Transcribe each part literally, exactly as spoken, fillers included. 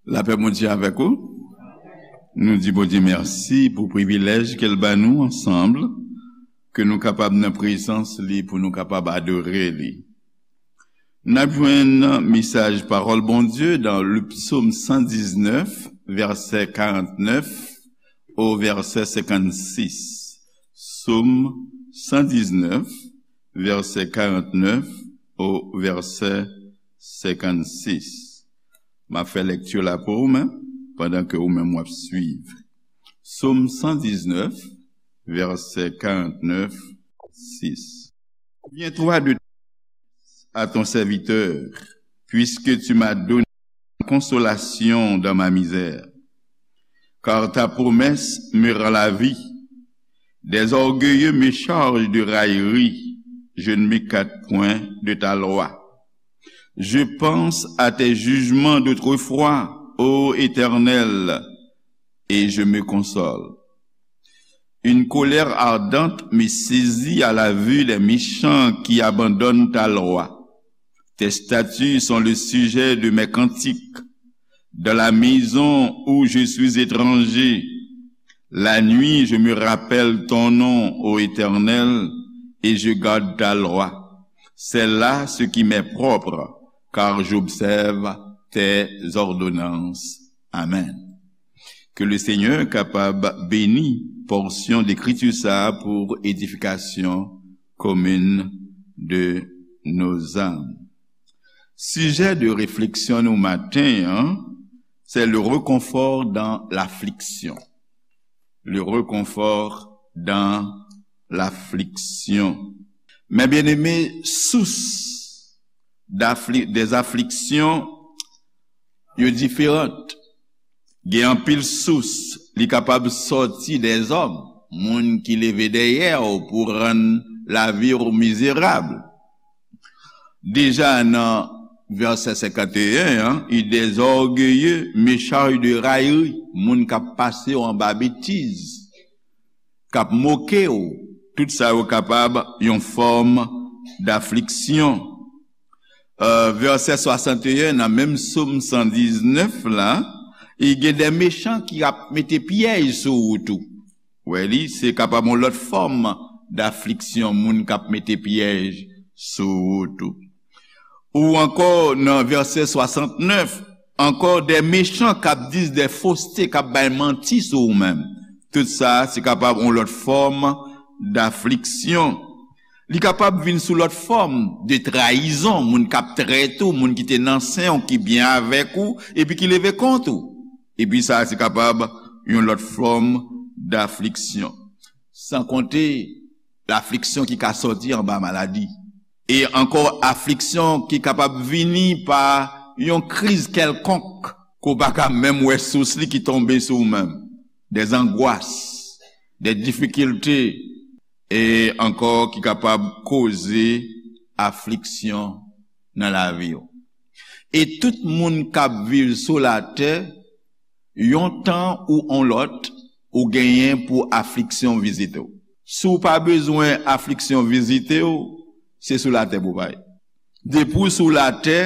Lapè Bondye avèk ou. Nou di Bondye mèsi pou privilèj ke l ban nou ansanm, ke nou kapab nan prezans li, pou nou kapab adore li. N ap jwenn mesaj pawòl Bondye nan le psaume cent dix-neuf, vèsè karannèf o vèsè senkannsis. Psaume cent dix-neuf, vèsè karannèf o vèsè senkannsis. M ap fè lèkti la pou ou menm, pandan ke ou menm w ap swiv. Psaume cent dix-neuf, vèsè karannèf, sis. Souviens-toi de à ton serviteur, puisque tu m'as donné consolation dans ma misère. Car ta promesse me rend la vie. Des orgueilleux me chargent de raillerie, je ne m'écarte point de ta loi. Je pense à tes jugements d'autrefois, ô Éternel, et je me console. Une colère ardente me saisit à la vue des méchants qui abandonnent ta loi. Tes statuts sont le sujet de mes cantiques. Dans la maison où je suis étranger, la nuit, je me rappelle ton nom, ô Éternel, et je garde ta loi. C'est là ce qui m'est propre, car j'observe tes ordonnances. Amen. Ke le Senyè kapab beni pòsyon lekriti sa a pou edifikasyon komin de nos âmes. Sijè de refleksyon nou maten an, c'est le réconfort dans l'affliction. Le réconfort dans l'affliction. Mes bien-aimés, source d'affli- des afflictions, yo diferan. Gen anpil sous, li kapab sòti dèzòm, moun ki leve dèyè w pou rann lavi w mizerab. Deja nan vèsè senkanteyen an, il des orgueilleux me charge de raillerie, moun k ap pase w anba betiz, k ap moke w, tout sa yo kapab yon fòm dafliksyon. Euh, vèsè swasanteyen nan menm Sòm san diznèf la, e gen de mechan ki ap mete pyèj sou wout ou. Wè li, se kapab yon lòt fòm dafliksyon, moun k ap mete pyèj sou wout ou. Ou ankò nan vèsè swasantnèf, ankò de mechan k ap di de foste, k ap bay manti sou ou menm. Tout sa, se kapab yon lòt fòm dafliksyon. Li kapab vin sou lòt fòm de trayizon, moun k ap trete w, moun ki te nan sen w, ki byen avèk ou, epi ki leve kont ou. Epi sa, se kapab yon lòt fòm dafliksyon. San konte lafliksyon ki ka sòti anba maladi. E ankò afliksyon ki kapab vini pa yon kriz kèlkonk, ke w pa ka menm wè sous li ki tonbe sou ou menm. Des angoisses, des difficultés, e ankò ki kapab koze afliksyon nan lavi w. E tout moun k ap viv sou latè, yon tan ou on lòt, ou genyen pou afliksyon vizite w. Si w pa bezwen afliksyon vizite w, se sou latè pou w pa ye. Depi w sou latè,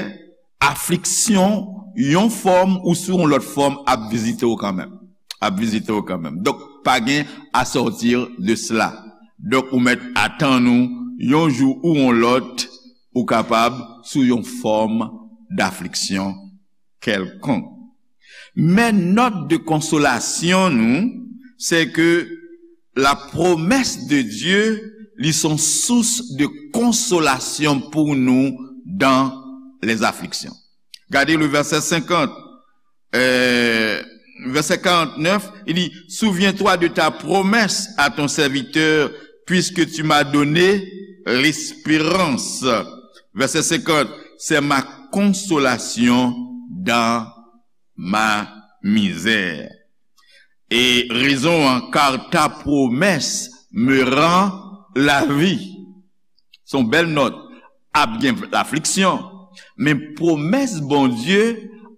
afliksyon, yon fòm ou sou yon lòt fòm, ap vizite w kanmenm. Ap vizite w kanmenm. Donk, pa gen à sortir de cela. Donk, ou mèt atann ou, yon jou ou yon lòt, ou kapab sou yon fòm dafliksyon kèlkonk. Men nòt de konsolasyon nou, se ke la promesse de Dieu, li son sous de konsolasyon pou nou dans les afflictions. Gade le verset cinquante, euh, verset quarante-neuf, il dit, souviens-toi de ta promesse à ton serviteur, puisque tu m'as donné l'espérance. Verset cinquante, c'est ma consolation dans ma misère. E rezon an, car ta promesse me rend la vie. Se yon bèl nòt. Ap gen lafliksyon, men pwomès Bondye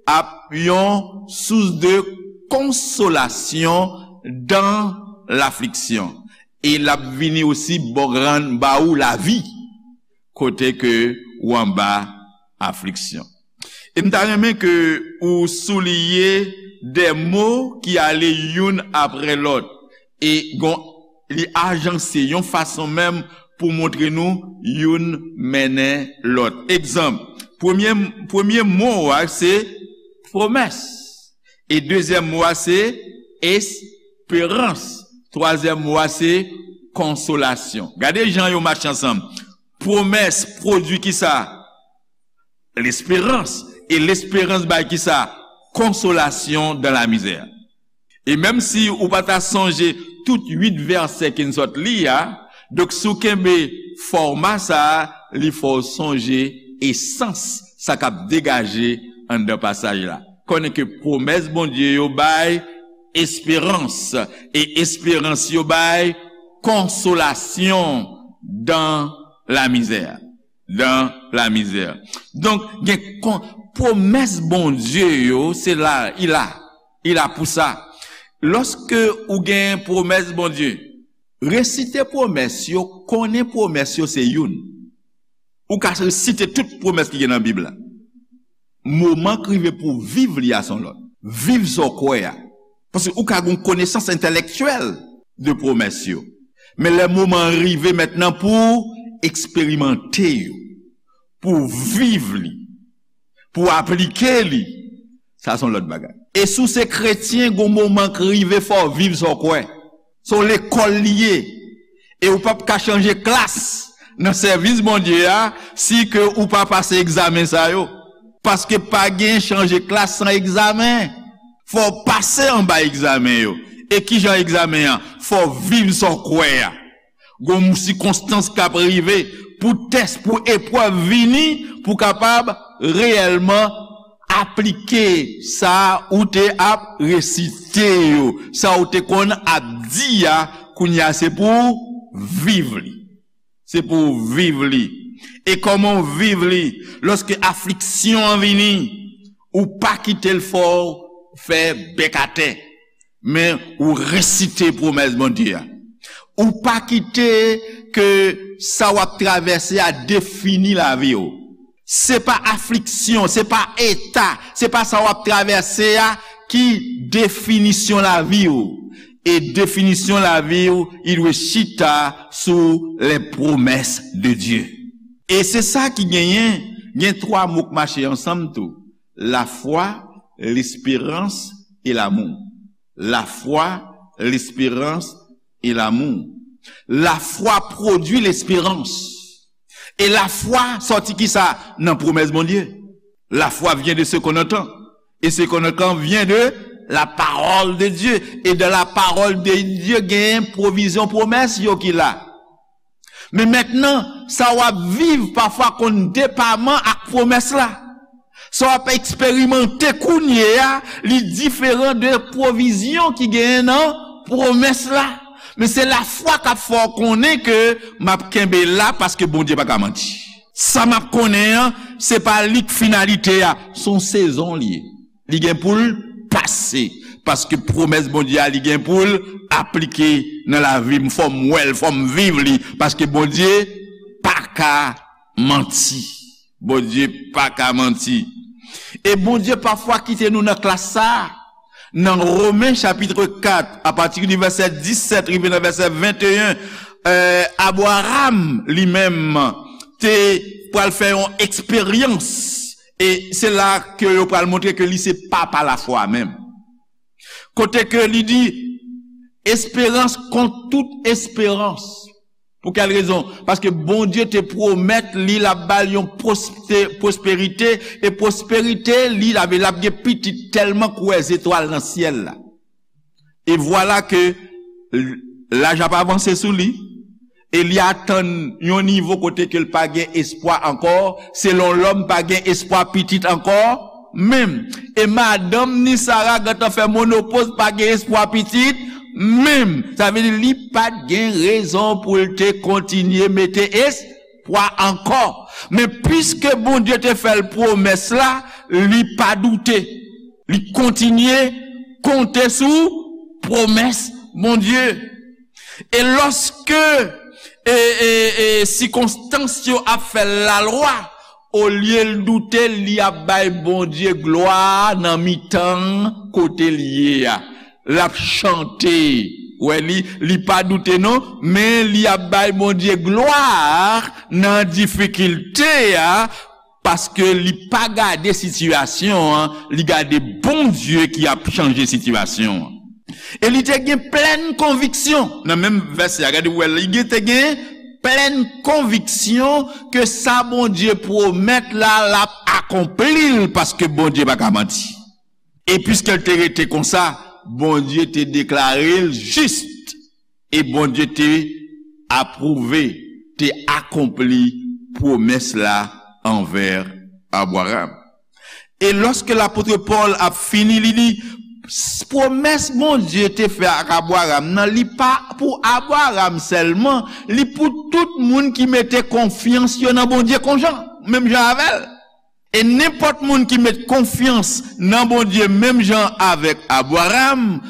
ap yon sous de konsolasyon dans l'afliction. E l ap vini osi ba w, rann ba ou lavi kote ke ou anba afliksyon. E m ta renmen ke ou souliye de mo ki ale youn apre lòt. E gon, li ajanse yon fason menm pou montre nou youn mennen lòt. Egzanp, premye, premye mo a se pwomès. E dezyèm mo a se esperans. Twazyèm mo a se konsolasyon. Gade jan yo mache ansanm. Pwomès pwodui kisa? Lesperans. E lesperans bay kisa? Konsolasyon dan lamizè. E menm si ou pa ta sonje tout uit vèsè ke n sot li a, donk si w kenbe fòma sa a, li fè w sonje esans sa k ap degaje anndan pasaj la. Konnen ke pwomès Bondye yo bay esperans, e esperans yo bay konsolasyon dan lamizè. Dan lamizè. Donk, gen kon, pwomès Bondye yo, se la, i la. I la pou sa. Lòske ou gen pwomès Bondye, resite pwomès yo, konnen pwomès yo se youn. Ou ka resite tout pwomès ki gen nan Bib la. Moman k rive pou w viv li a se yon lòt. Viv sa w kwè a. Paske ou ka gen yon konesans entèlektyèl de pwomès yo. Men lè moman an rive mentnan pou w eksperimante yo, pou w viv li, pou w aplike li, sa se yon lòt bagay. E si w se kretyen, gon moman k rive fò w viv sa w kwè. Se yon lekòl li ye. E ou p ap ka chanje klas nan sèvis Bondye a si ke ou pa pase egzamen sa yo. Paske pa gen chanje klas san egzamen. Fò w pase anba egzamen yo. E ki jan egzamen an? Fò w viv sa w kwè a. Gon sikonstans k ap rive pou tès, pou eprèv vini, pou w kapab reyèlman aplike sa ou te ap resite yo, sa ou te konn ap di a, kounye a se pou w viv li. Se pou w viv li. E kòman w viv li? Lòske afliksyon an vini, ou pa kite l fè w fè bèk atè, men ou resite pwomès Bondye a. Ou pa kite ke sa w ap travèse a defini lavi w. Se pa afliksyon, se pa eta, se pa sa w ap travèse a ki definisyon lavi w. E definisyon lavi w, li dwe chita sou les promesses de Dieu. E se sa ki genyen, gen twa mo k mache ansanm tou. Lafwa, lesperans e lamou. Lafwa, lesperans e lamou. Lafwa pwodui lesperans. E lafwa sòti kisa? Nan pwomès Bondye. La foi vient de ce qu'on entend. Et ce qu'on entend vient de la parole de Dieu. E dan la parole de Dieu, gen pwovizyon pwomès yo ki la. Men mentnan, sa w ap viv pafwa konn depaman ak pwomès la. Sa w ap eksperimante kounye a, li diferan de pwovizyon ki genyen nan pwomès la. Men se lafwa k ap fè w konnen ke m ap kenbe la paske Bondye pa ka manti. Sa m ap konnen an, se pa li k finalite a, se yon sezon li ye. Li gen pou l pase. Paske pwomès Bondye a, li gen pou l aplike nan lavi m. Fò m wè l, fò m viv li. Paske Bondye pa ka manti. Bondye pa ka manti. E Bondye pafwa kite nou nan klas sa a. Nan Romen chapit kat, apati di vèsè disèt rive nan vèsè venteyen, eh, Abraram li menm te pral fè yon eksperyans. E se la ke yo pral montre ke li se papa lafwa menm. Kote ke li di, esperans kont tout esperans. Pou kèl rezon? Paske Bondye te pwomèt li l ap ba l yon pwoste-, pwosperite, e pwosperite li, l ap, l ap gen pitit tèlman kwè zetwal nan syèl la. E vwala ke l-, laj ap avanse sou li, e li atann yon nivo kote ke l pa gen espwa ankò, selon lòm pa gen espwa pitit ankò, menm. E madanm ni Sara gentan fè monopoz, pa gen espwa pitit, menm. Sa vle di li pa t gen rezon pou l te kontinye mete espwa ankò. Men piske Bondye te fè l pwomès la, li pa doute. Li kontinye konte sou pwomès Bondye. E lòske, e, e, e, sikonstans yo ap fè lalwa, Olye l doute, li ap bay Bondye glwa nan mitan kote l ye a. L ap chante. Wè li, li pa doute non, men li ap bay Bondye glwa nan difikilte a, paske li pa gade sitiyasyon an, li gade Bondye ki ap chanje sitiyasyon an. E li te gen plèn konviksyon. Nan menm vèsè a, gade, wè, li gen, te gen plèn konviksyon ke sa Bondye pwomèt la, l ap akonpli l, paske Bondye pa ka manti. E piske l te rete konsa, Bondye te deklare l jis. E Bondye te apwouve, te akonpli pwomès la anvè Abraram. E lòske lapot Pòl ap fini, li di, s- pwomès Bondye te fè ak Abraram nan, li pa pou Abraram sèlman, li pou tout moun ki mete konfyans yo nan Bondye konjan, menm jan avè l. E nenpòt moun ki met konfyans nan Bondye menm jan avèk Abraram,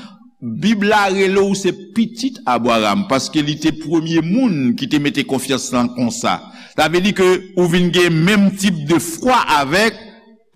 Bib la rele w se pitit Abraram, paske li te premye moun ki te mete konfyans lan konsa. Sa vle di ke ou vin gen menm tip de fwa avèk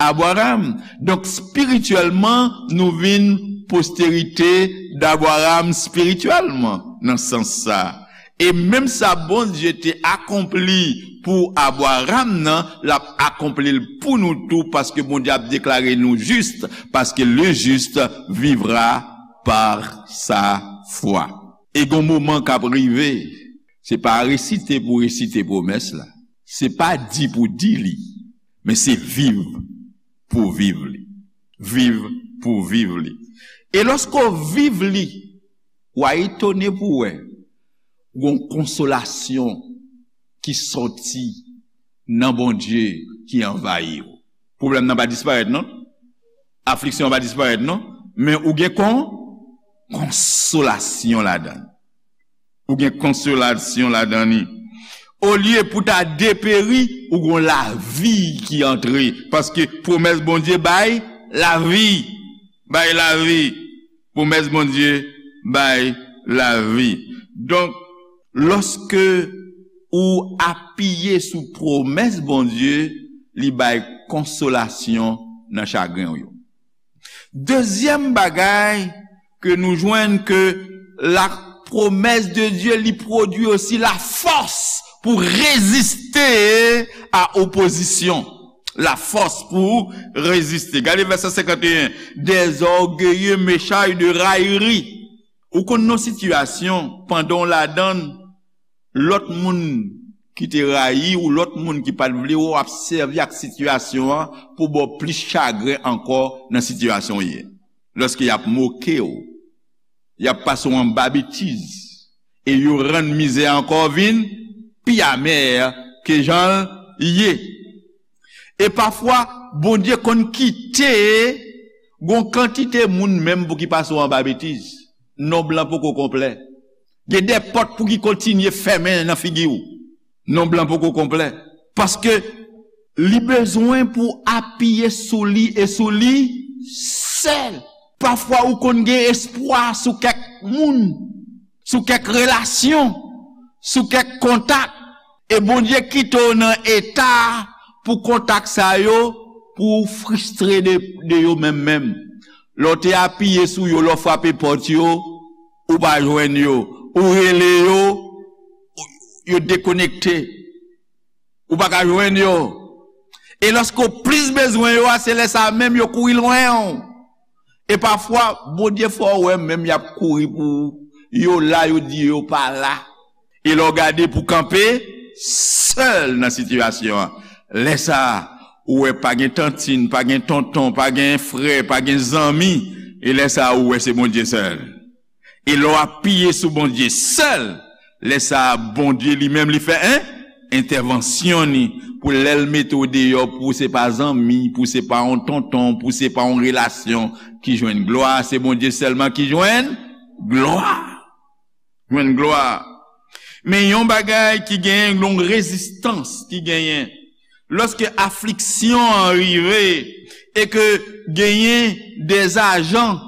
Abraram. Donk, espirityèlman, nou vin posterite d'Abraram espirityèlman, nan sans sa. E menm sa Bondye te akonpli pou Abraram nan, l ap akonpli l pou nou tou, paske Bondye ap deklare nou jis, paske le juste vivra par sa foi. E gon moman k ap rive, se pa resite pou resite pwomès la, se pa di pou di li, men se viv pou viv li. Viv pou viv li. E lòske w viv li, w a etone pou w wè gon konsolasyon ki sòti nan Bondye ki anvayi w. Pwoblèm nan pa disparèt non. Afliksyon an pa disparèt non. Men ou gen kon konsolasyon ladan l. Ou gen konsolasyon ladan li. Olye pou ta deperi, ou gon lavi ki antre. Paske pwomès Bondye bay lavi. Bay lavi. Pwomès Bondye bay lavi. Donk, lòske ou apiye sou pwomès Bondye, li bay konsolasyon nan chagren w yo. Dezyèm bagay ke nou jwenn ke la promesse de Dieu li pwodui osi la fòs pou reziste a opozisyon. La fòs pou reziste. Gade vèsè senkant e en. Des orgueilleux m'échaillent de raillerie. Ou konn nan sitiyasyon, pandan w ladan l, lòt moun ki te rayi w, lòt moun ki pa t vle w, ap sèvi ak sitiyasyon an pou ba w plis chagren ankò nan sitiyasyon w ye. Lòske y ap moke w, y ap pase w anba betiz, e yo rann mizè a ankò vin pi amè ke jan l ye. E pafwa, Bondye konn kite gon kantite moun menm pou ki pase w anba betiz. Nonb lan poko konplè. Gen de pòt pou ki kontinye fèmen nan figi w. Nonb lan poko konplè. Paske li bezwen pou apiye sou li e sou li sèl. Pafwa ou konn gen espwa sou kèk moun, sou kèk relasyon, sou kèk kontak. E Bondye kite w nan eta pou kontak sa yo, pou w fristre de, de yo menm menm. Lè w te apiye sou yo, lè w frape pòt yo, ou pa jwenn yo. Ou rele yo, yo dekonekte. Ou pa ka jwenn yo. E lòske w plis bezwen yo a, se lè sa a menm yo kouri lwen w. E pafwa, Bondye fè w wè menm y ap kouri pou ou. Yo la, yo di yo pa la. E lè w gade pou kanpe sèl nan sitiyasyon an. Lè sa a, ou wè pa gen tantin, pa gen tonton, pa gen frè, pa gen zanmi. E lè sa a, ou wè se Bondye sèl. E lè w apiye sou Bondye sèl, lè sa a, Bondye li menm li fè en entèvansyon ni pou lè l mete w deyò, pou se pa zanmi, pou se pa yon tonton, pou se pa yon relasyon ki jwenn glwa, se Bondye sèlman ki jwenn glwa. Jwenn glwa. Men yon bagay ki genyen, yon rezistans ki genyen. Lòske afliksyon an rive e ke genyen de ajan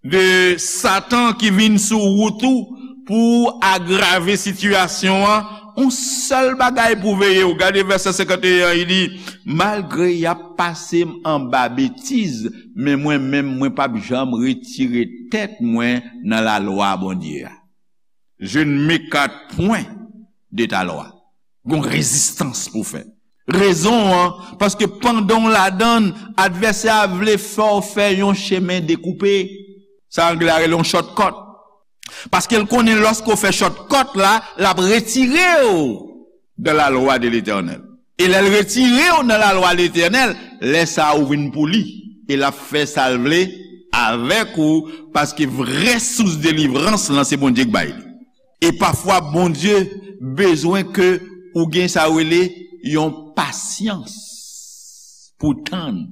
de Satan ki vin sou wout ou pou agrave sitiyasyon an, Yon sèl bagay pou veye w. Gade vèsè senkanteyen an, li di, malgre y ap pase m anba betiz, men mwen menm, mwen p ap janm retire tèt mwen nan lalwa Bondye a. Je ne m'écarte point de ta loi. Gon rezistans pou fè. Rezon an, paske pandan w ladan l, advèsè a vle fè w fè yon chemen dekoupe. Sa anglè a rele yon shortcut. Paske l konnen lòske w fè shortcut la, l ap retire w dans la loi de l'Éternel. E lè l retire w nan lalwa Letènèl, lè sa a ou vin pou li. E l ap fè sa l vle avèk ou, paske vrè sous delivrans lan se Bondye k bay li. E pafwa Bondye bezwen ke ou gen sa yo rele yon pasyans pou tann.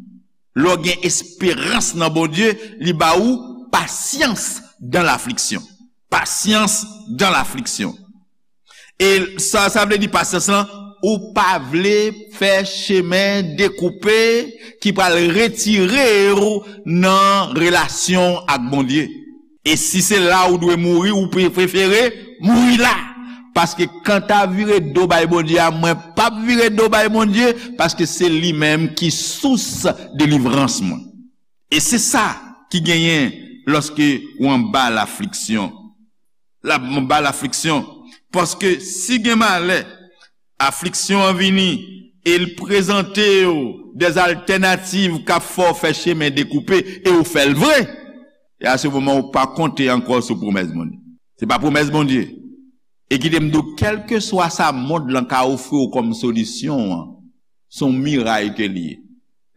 Lè w gen esperans nan Bondye, li ba ou pasyans dan lafliksyon. Pasyans dan lafliksyon. E sa, sa vle di pasyans lan, ou pa vle fè chemen dekoupe ki pral retire w nan relasyon ak Bondye. E si se la ou dwe mouri, ou pre-, prefere mouri la. Paske kanta vire do bay Bondye a, mwen p ap vire do bay Bondye, paske se li menm ki sous delivrans mwen. E se sa ki genyen lòske ou anba lafliksyon. La, anba lafliksyon. Paske si gen malè, afliksyon an vini e l prezante w dèzaltènativ k ap fè w fè chemen dekoupe e ou fè l vre. E a se moman ou pa konte ankò sou pwomès Bondye. Se pa pwomès Bondye. E kite m di w, kèlkeswa sa mond lan ka ofri w kòm solisyon an, se yon miray ke li ye.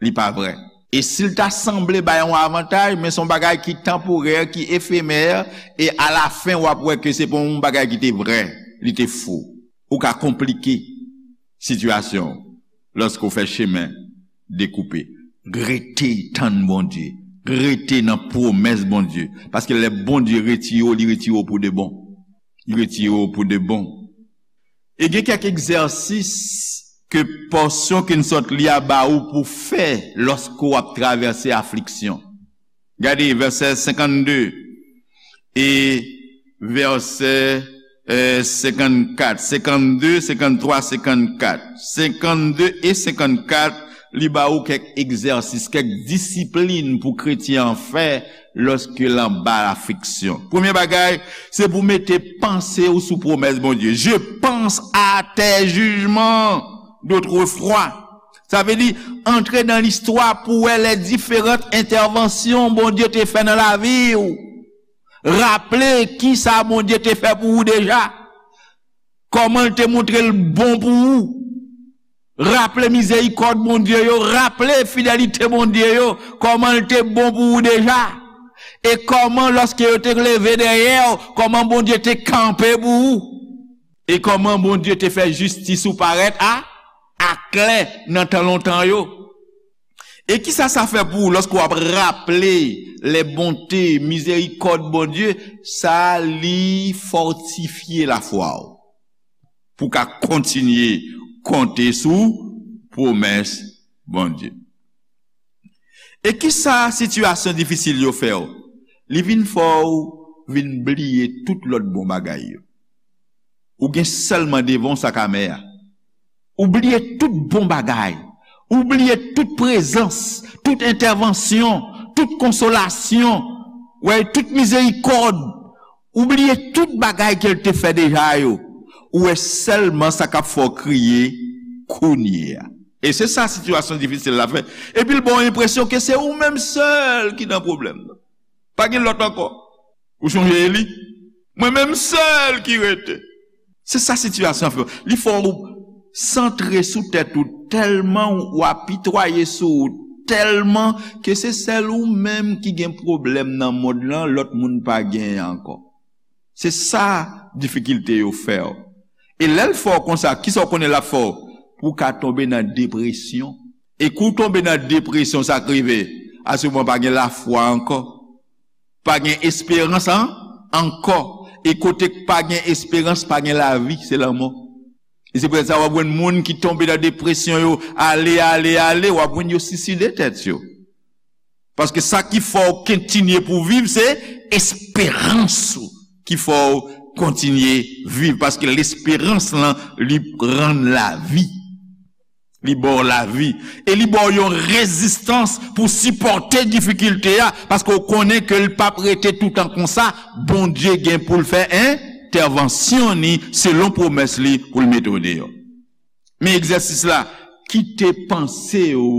Li pa vrè. E si l ta sanble bay yon avantaj, men se yon bagay ki tanporè, ki efemè, e alafen w ap wè ke se pa yon bagay ki te vrè, li te fo. Ou ka konplike sitiyasyon w lòske w fè chemen dekoupe. Rete tann Bondye. Rete nan pwomès Bondye. Paske lè Bondye retire w, li retire w pou de bon. Li retire w pou de bon. E gen kèk egzèsis ke pòsyon ke n sot li a ba ou pou fè lòske w ap travèse afliksyon. Gade vèsè senkannde e vèsè, eh, senkannkat, senkannde, senkanntwa, senkannkat. Senkannde e senkannkat, li ba ou kèk egzèsis, kèk disiplin pou kretyen an fè lòske l anba afliksyon. Premye bagay, se pou mete panse w sou pwomès Bondye. Je pense à tes jugements d'autrefois. Sa vle di, antre nan listwa pou wè lè diferan entèvansyon Bondye te fè nan lavi w. Raple kisa Bondye te fè pou ou deja. Kòman l te montre l bon pou ou. Raple mizerikòd Bondye yo, raple fidelite Bondye yo, kòman l te bon pou ou deja. E kòman lòske yo te leve dèyè w, kòman Bondye te kanpe pou ou. E kòman Bondye te fè jistis ou parèt a, aklè nan tan lontan yo. E kisa sa fè pou ou lòske w ap raple les bontés, mizerikòd Bondye, sa li fòtifye lafwa w. Pou w ka kontinye konte sou pwomès Bondye. E kisa sitiyasyon difisil yo fè w? Li vin fè w vin bliye tout lòt bon bagay yo. Ou gen sèlman devan w sak amè a. Ou bliye tout bon bagay. Ou bliye tout prezans, tout entèvansyon, tout konsolasyon, wè, tout mizerikòd. Ou bliye tout bagay ke l te fè deja yo. Ou wè sèlman sa k ap fè w kriye kounye a. E se sa sitiyasyon difisil la fè. Epi l ba w enpresyon ke se ou menm sèl ki nan pwoblèm nan. Pa gen lòt ankò. Ou sonje Eli? Mwen menm sèl ki rete. Se sa sitiyasyon an fè w. Li fè w santre sou tèt ou tèlman, w apitwaye sou ou tèlman ke se sèl ou menm ki gen pwoblèm nan mond lan, lòt moun pa genyen ankò. Se sa difikilte yo fè w. E lè l fè w konsa, kisa w konnen l ap fè w? Pou w ka tonbe nan depresyon. E kou w tonbe nan depresyon, sa k rive? Asouvan pa gen lafwa ankò. Pa gen esperans an-, ankò. E kote k pa gen esperans, pa gen lavi, se lanmò. E se poutèt sa w ap jwenn moun ki tonbe nan depresyon yo, ale, ale, ale, w ap jwenn yo siside tèt yo. Paske sa ki fè w kontinye pou viv, se esperans ou ki fè w kontinye viv, paske lesperans lan li rann lavi. Li ba w lavi. E li ba w yon rezistans pou sipòte difikilte a, paske w konnen ke l p ap rete toutan konsa. Bondye gen pou l fè entèvansyon ni selon pwomès li pou l mete w deyò. Men egzèsis la, kite panse w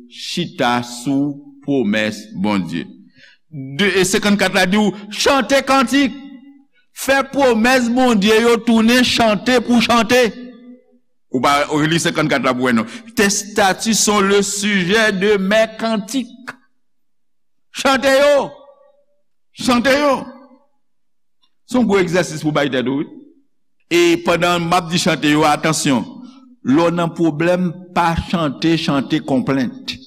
chita sou pwomès Bondye. De, e senkannkat la di w, chante kantik, fè pwomès Bondye yo tounen chante pou chante. Ou pa, ou li senkannkat la pou wè non. Tes statuts sont le sujet de mes cantiques. Chante yo. Chante yo. Se yon gwo egzèsis pou bay tèt ou, wi. E pandan m ap di chante yo, atansyon. Lè w nan pwoblèm, pa chante, chante konplent.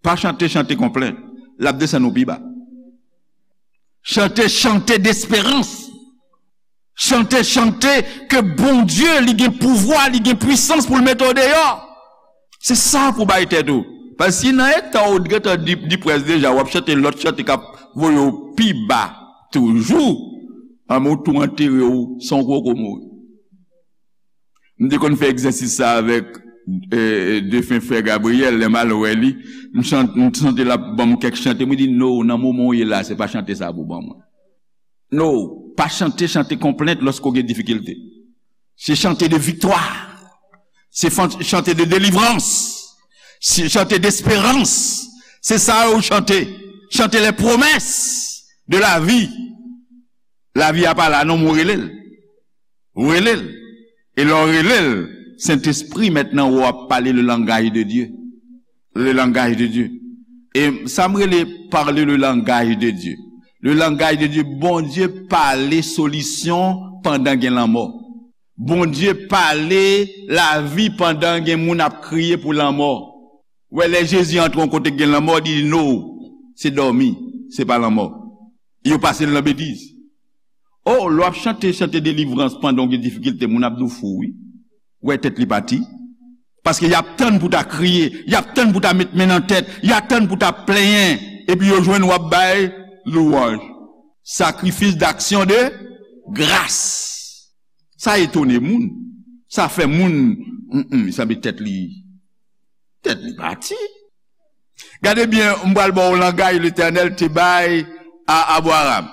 Pa chante, chante konplent. L ap desann ou pi ba. Chante, chante desperans. Chante, chante ke Bondye, li gen pouvwa, li gen pwisans pou l mete w deyò. Se sa pou bay tèt ou. Paske si nan eta w gentan di, di près deja, w ap chante lòt chante k ap voye w pi ba toujou, anben w tou antere w san w poko mouri. M te konn fè egzèsis sa avèk, e, defen frè Gabriel, lè m al wè li, m chante, m chante l ap ban m kèk chante, mwen di, no, nan moman w ye la, se pa chante sa pou ban mwen. No, pa chante, chante konplent lòske w gen difikilte. Se chante de viktwa. Se fan- chante de delivrans. Se chante desperans. Se sa yo chante. Chante les promesses de la vie. Lavi a pa la non, men w rele l. Ou rele l. E lè w rele l, Sentespri mentnan w ap pale le langaj de Dye. Le langaj de Dye. E sa m rele parle le langaj de Dye. Le langaj de Dye, Bondye pale solisyon pandan gen lanmò. Bondye pale lavi pandan gen moun ap kriye pou lanmò. Wè, lè Jezi antre yon kote k gen lanmò, li di, no, se dòmi, se pa lanmò. Yo pase l nan betiz. O, lè w ap chante, chante delivrans pandan w gen difikilte, moun ap di w fou, wi. Wè tèt li pati. Paske y ap tann pou ta kriye, y ap tann pou ta met men nan tèt, y ap tann pou ta plenyen, epi yo jwenn w ap bay louwanj. Sacrifice d'action de grâce. Sa etone moun. Sa fè moun, mm, mm, sanble tèt li, tèt li pati. Gade byen, m pral ba w langaj Letènèl te bay a Abraram.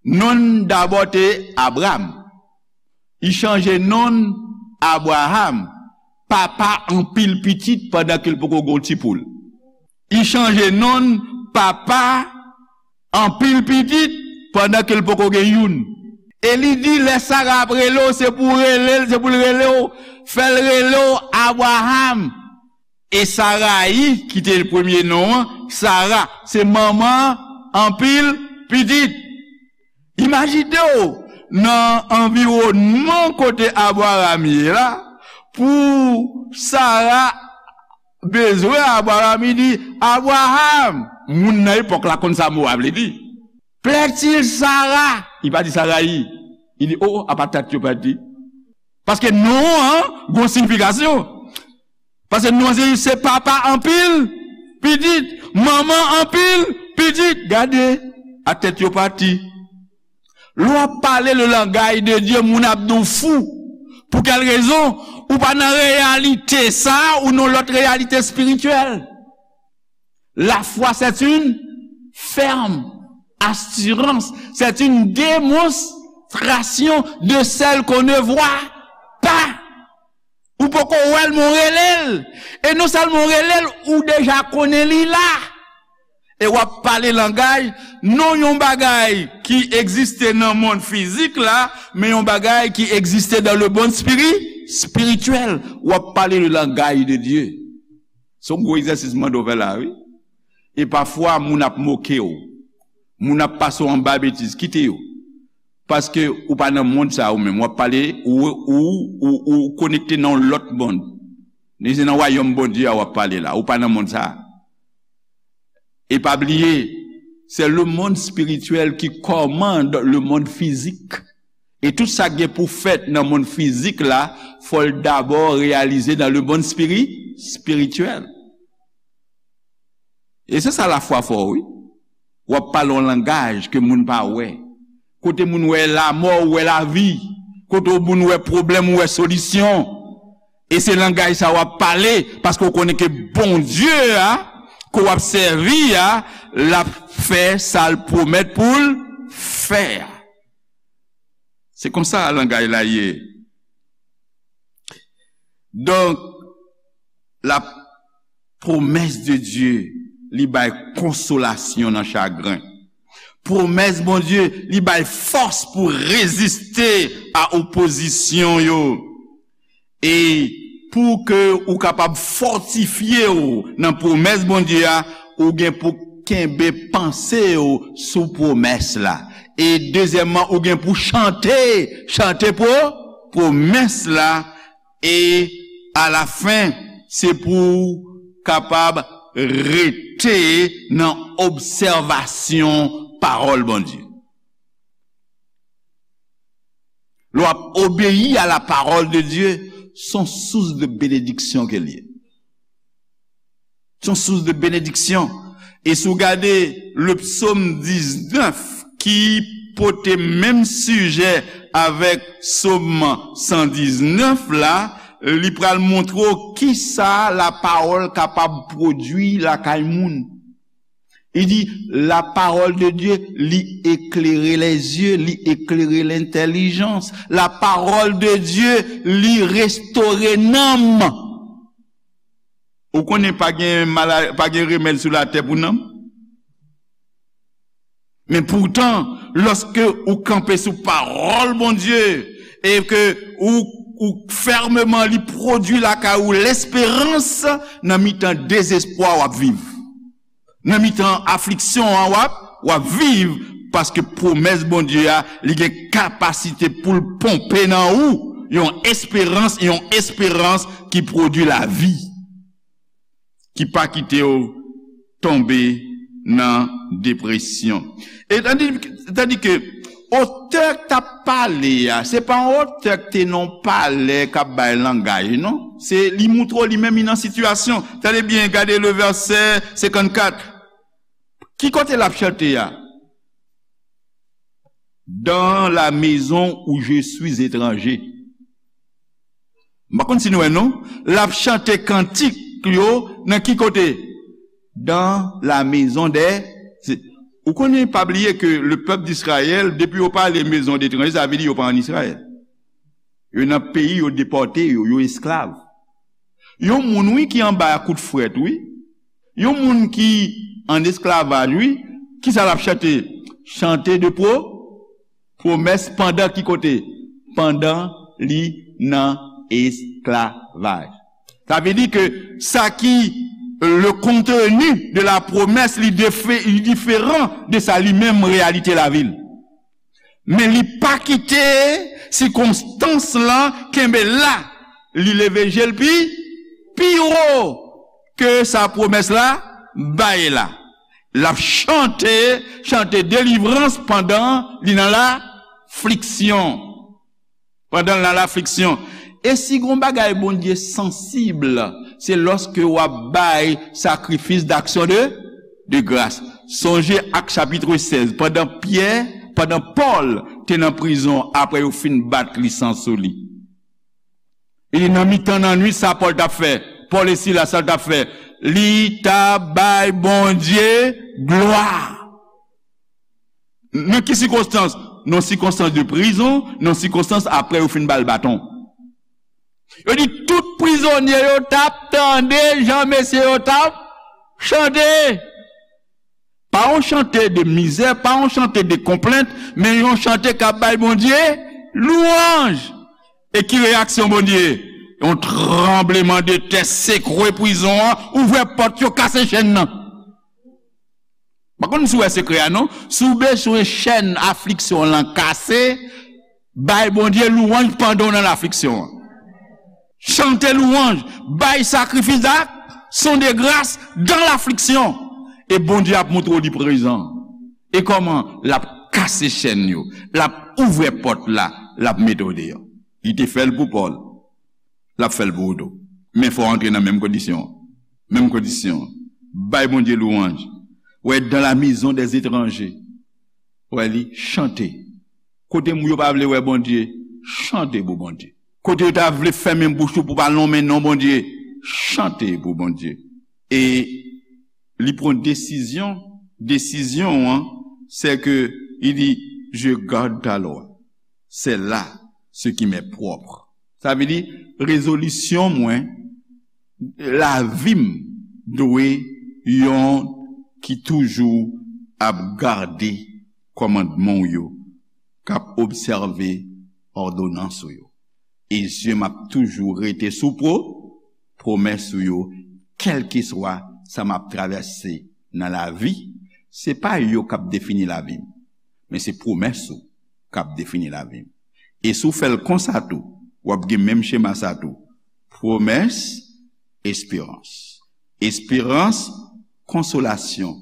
Non l dabò te Abram. Li chanje non l Abraram, papa anpil pitit, pandan ke l poko gen yon ti poul. Li chanje non l papa anpil pitit pandan ke l poko gen youn. E li di, lè Sara ap rele w, se pou w rele l, se pou l rele w, fè l rele w Abraram. E Sarayi, ki te premye non an, Sara, se manman anpil pitit. Imajine w nan anviwònman kote Abraram ye la, pou Sara bezwen Abraram, li di, Abraram, moun nan epòk la konn sa mo a vle di. Plaît-il Sara? Li pa di Sarayi. Li di, o, apa tèt yo pati. Paske non an gon siyifikasyon. Paske non an se, se papa anpil pitit, manman anpil pitit. Gade, a tèt yo pati. Lè w ap pale le langaj de Dye, moun ap di w fou. Pou kèl rezon? Ou pa nan reyalite sa, ou nan lòt reyalite espirityèl. La foi, c'est une ferme assurance, c'est une démonstration de celle qu'on ne voit pas. Ou poko wè l, men w rele l. E non sèlman w rele l, ou deja konnen li la. E w ap pale langaj, non yon bagay ki egziste nan mond fizik la, men yon bagay ki egziste dans le monde spiri-, spirituel. W ap pale le langaj de Dye. Se yon gwo egzèsis m mande w fè la, wi. E pafwa, moun ap moke w. Moun ap pase w anba betiz. Kite yo. Paske ou pa nan mond sa a ou menm. W ap pale, ou, ou, ou, ou konekte nan yon lòt mond. Men se nan wayòm Bondye a w ap pale la. Ou pa nan mond sa a. E pa bliye, c'est le monde spirituel qui commande le monde physique. E tout sa k gen pou fèt nan mond fizik la, fò l dabò reyalize dans le monde spiri-, spirituel. E se sa lafwa fè w, wi. W ap pale yon langaj ke moun pa wè. Kote moun wè lanmò, ou wè lavi. Kote moun wè pwoblèm, ou wè solisyon. E se langaj sa w ap pale, paske w konnen ke Bondye a, ke w ap sèvi a, l ap fè sa l pwomèt pou l fè a. Se konsa langaj la ye. Donk, la promesse de Dieu, li bay konsolasyon nan chagren. Pwomès Bondye, li bay fòs pou reziste a opozisyon yo. E pou ke ou kapab fòtifye w nan pwomès Bondye a, ou gen pou kenbe panse w sou pwomès la. E dezyèmman, ou gen pou chante, chante pwo-, pwomès la. E alafen, se pou w kapab rete nan obsèvasyon pawòl Bondye. Lè w ap obeyi a la parole de Dieu, se yon sous de benediksyon ke l ye. Se yon sous de benediksyon. E si w gade le psaume diznèf ki pote menm sijè avèk psaume san diznèf la, li pral montre w kisa la parole kapab pwodui lakay moun. Li di, la parole de Dieu, li éclaire les yeux, li éclaire l'intelligence. La parole de Dieu, li restore nanm. Ou konnen pa gen mala-, pa gen remèd sou latè pou nanm. Men poutan, lòske ou kanpe sou pawòl Bondye, e ke ou, ou fèmman li pwodui lakay ou lesperans, nan mitan dezespwa w ap viv. Nan mitan afliksyon an w ap, w ap viv, paske pwomès Bondye a, li gen kapasite pou l ponpe nan ou yon esperans, yon esperans ki pwodui lavi, ki pa kite w tonbe nan depresyon. E tandi, tandi ke otè k t ap pale a, se pa yon otè k te nan yon palè k ap bay langaj, non. Se li montre w li menm li nan sitiyasyon. Tande byen, gade le vèsè senkannkat. Ki kote l ap chante a? Dans la maison où je suis étranger. M pa konn si nou wè non. L ap chante kantik yo nan ki kote? Dans la maison des, se, ou konnen, pa bliye ke le peuple d'Israël, depi yo pale maison d'étranger, sa vle di yo pa ann Izrayèl. Yo nan peyi yo depòte yo, yo esklav. Yon moun, wi, ki anba kout frèt, wi. Yon moun ki an esklavaj, wi. Kisa l ap chante? Chante de pwo-, pwomès pandan ki kote? Pandan li nan esklavaj. Sa vle di ke sa ki, le contenu de la promesse, li defe-, li diferan de sa li menm reyalite lavi l. Men li pa kite sikonstans lan kenbe la. Li leve je l pi, pi wo ke sa pwomès la bay la. L ap chante, chante delivrans pandan li nan lafliksyon. Pandan l nan lafliksyon. E si gon bagay Bondye sansib, se lòske w ap bay sakrifis d'action de, de grâce. Sonje Ak chapit sèz, pandan Pyè, pandan Pòl te nan prizon, apre yo fin bat li san sou li. E nan mitan nan nwit, sa Pòl t ap fè? Pòl e Sila, sa l t ap fè? Li t ap bay Bondye glwa. Nan ki sikonstans? Nan sikonstans de prizon, nan sikonstans apre yo fin ba l baton. Yo di tout prizonye yo t ap tande jan mesye yo t ap chante. Pa yon chante de mizè, pa yon chante de konplent, men yon chante k ap bay Bondye lwanj. E ki reyaksyon Bondye? Yon tranbleman de tè sekwe prizon an, ouvè pòt yo, kase chenn nan. Pa konn si w wè sekrè a non. Si w bezwen chèn afliksyon lan kase, bay Bondye lwanj pandan w nan lafliksyon an. Chante lwanj, bay sakrifis d'action de grâce dans l'affliction. E Bondye ap montre w li prezan. E kòman? L ap kase chèn yo, l ap ouvè pòt la, l ap mete w deyò. Li te fè l pou Pòl, l ap fè l pou ou tou. Men fò w antre nan menm kondisyon an. Menm kondisyon an. Bay Bondye lwanj. Wè, dans la maison des étrangers. Wè li, chante. Kote moun yo pa vle wè Bondye, chante pou Bondye. Kote yo ta vle fèmen bouch ou pou pa lonmen non Bondye, chante pou Bondye. E li pran desizyon, desizyon an, se ke li di, "Je garde ta loi. C'est là ce qui m'est propre." Sa vle di, rezolisyon mwen, lavi m dwe yon ki toujou ap gade kòmandman w yo, k ap obsève òdonans ou yo. E zye m ap toujou rete sou pwo-, pwomès ou yo, kèlkeswa sa m ap travèse nan lavi. Se pa yo k ap defini lavi m, men se pwomès ou k ap defini lavi m. E si w fè l konsa tou, w ap gen menm chema sa tou. Pwomès, esperans. Esperans, konsolasyon.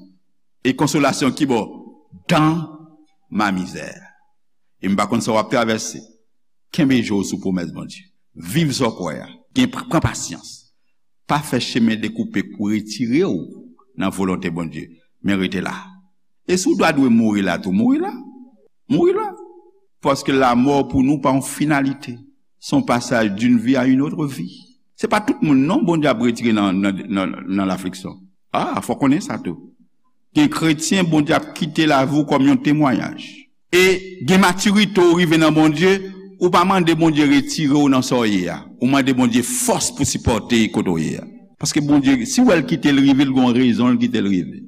E konsolasyon ki bò? Dans ma misère. E m pa konn sa w ap travèse. Kenbe je w sou pwomès Bondye. Viv sa w kwè a. Gen, pran pasyans. Pa fè chemen dekoupe pou retire w nan volonte Bondye, men rete la. E si w ta dwe mouri la tou, mouri la. Mouri la. Paske lamò pou nou pa yon finalite. Se yon pasaj d'une vie à une autre vie. Se pa tout moun non Bondye ap retire nan, nan, nan, nan lafliksyon. A, fò konnen sa tou. Gen kretyen Bondye ap kite lavi w kòm yon temwayaj. E gen matirite w rive nan Bondye, ou pa mande Bondye retire w nan sa w ye a. Ou mande Bondye fòs pou sipòte kote w ye a. Paske Bondye, si w wè l kite l rive, l gon rezon l kite l rive.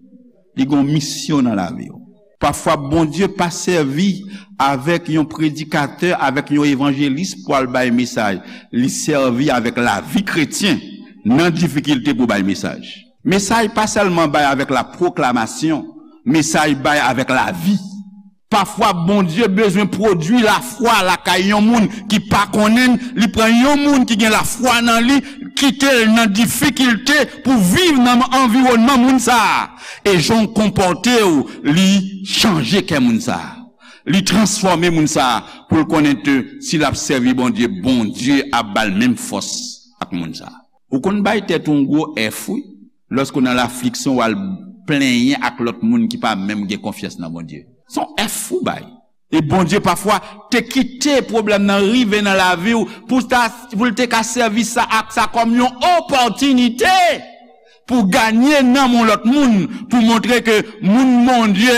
Li gon misyon nan lavi w. Pafwa, Bondye pa sèvi avèk yon predikatè, avèk yon evanjelis pou al bay mesaj. Li sèvi avèk lavi kretyen nan difikilte pou bay mesaj. Mesaj pa sèlman bay avèk lapwoklamasyon, mesaj bay avèk lavi. Pafwa, Bondye bezwen pwodui lafwa lakay yon moun ki pa konnen l. Li pran yon moun ki gen lafwa nan li, kite l nan difikilte pou viv nan anviwònman moun sa a. E jan w konpòte w, li chanje kè moun sa a. Li transfòme moun sa a pou l konnen ke si l ap sèvi Bondye, Bondye ap ba l menm fòs ak moun sa a. Ou konn bay tèt ou yon gwo F, wi. Lòske w nan lafliksyon, w al plenyen ak lòt moun ki pa menm gen konfyans nan Bondye. Se yon F ou bay. E Bondye pafwa te kite pwoblèm nan rive nan lavi w pou ta, pou l te ka sèvi sa ak sa kòm yon opòtinite pou ganye nanm yon lòt moun, pou montre ke moun Bondye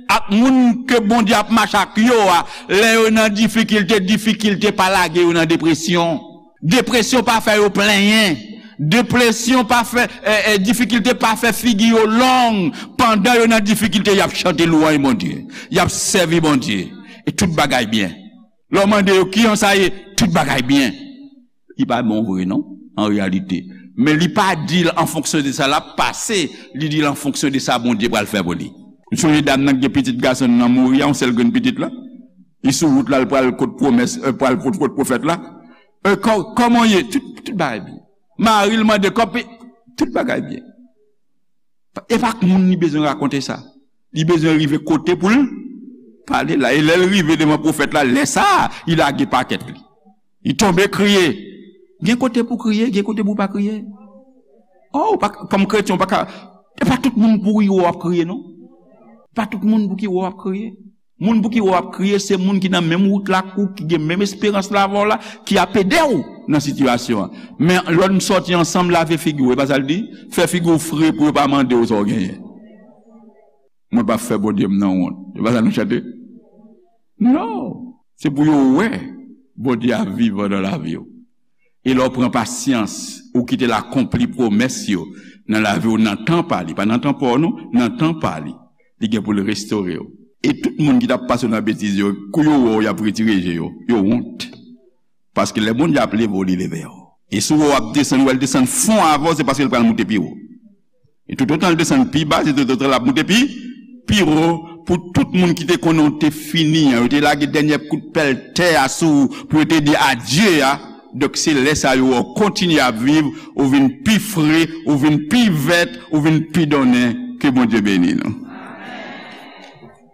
ak moun ke Bondye ap mache ak yo a, lè yo nan difikilte, difikilte pa lage yo nan depresyon. Depresyon pa fè yo plenyen. Depresyon pa fè, eh, eh, difikilte pa fè figi yo long. Pandan yo nan difikilte, y ap chante lwanj Bondye. Y ap sèvi Bondye. E tout bagay byen. Lè w mande yo, "Kijan sa ye?" Tout bagay byen. Li pa bon vre, non, an reyalite. Men li pa di l an fonksyon de sa l ap pase, li di l an fonksyon de sa Bondye pral fè pou li. M sonje dam nan ki gen pitit gason l nan mouri a, yon sèl grenn pitit la. Li sou wout la, l pral kot pwomès, eh, pral kot, kot pwofèt la. Eh, kò-, kòman w ye? Tout, tout bagay byen. Mari l mande kòb, tout bagay byen. E pa ak moun li bezwen rakonte sa. Li bezwen rive kote pou l pale la. E lè l rive devan pwofèt la, lè sa a, li lage pakèt li. Li tonbe kriye. Gen kote pou kriye, gen kote pou pa kriye. Oh, ou pa, kòm kretyen, ou pa ka, e pa tout moun pou ki wè w ap kriye, non. Pa tout moun pou ki wè w ap kriye. Moun pou ki wè w ap kriye, se moun ki nan menm wout la ak ou, ki gen menm esperans la avè w la, ki ap ede w nan sitiyasyon an. Men lè n sòti ansanm, lave figi w, e pa sa l di? Fè figi w fre pou yo pa mande w sa w genyen. Mwen p ap fè Bondye m nan wont. E pa sa nou chante? Non. Se pou yo wè Bondye ap vivan nan lavi w. E lè w pran pasyans, ou kite l akonpli pwomès yo nan lavi w nan tan pa li. Pa nan tan pa w non, nan tan pa li. Li gen pou l restore w. E tout moun ki t ap pase w nan betiz yo, kou yo wè w, y ap retire je yo. Yo wont. Paske lè Bondye ap leve w, li leve w. E si w wè w ap desann, w wè l desann fon avè w, se paske l pral moute pi wo. E toutotan l desann pi ba, se toutotan l ap moute pi, pi wo. Pou tout moun ki te konnen w te fini an, yo te lage dènye kout pèl tè a sou ou pou yo te di adye a. Donk, se lè sa yo wè w kontinye ap viv, ou vin pi fre, ou vin pi vèt, ou vin pi donnen. Ke Bondye beni nou.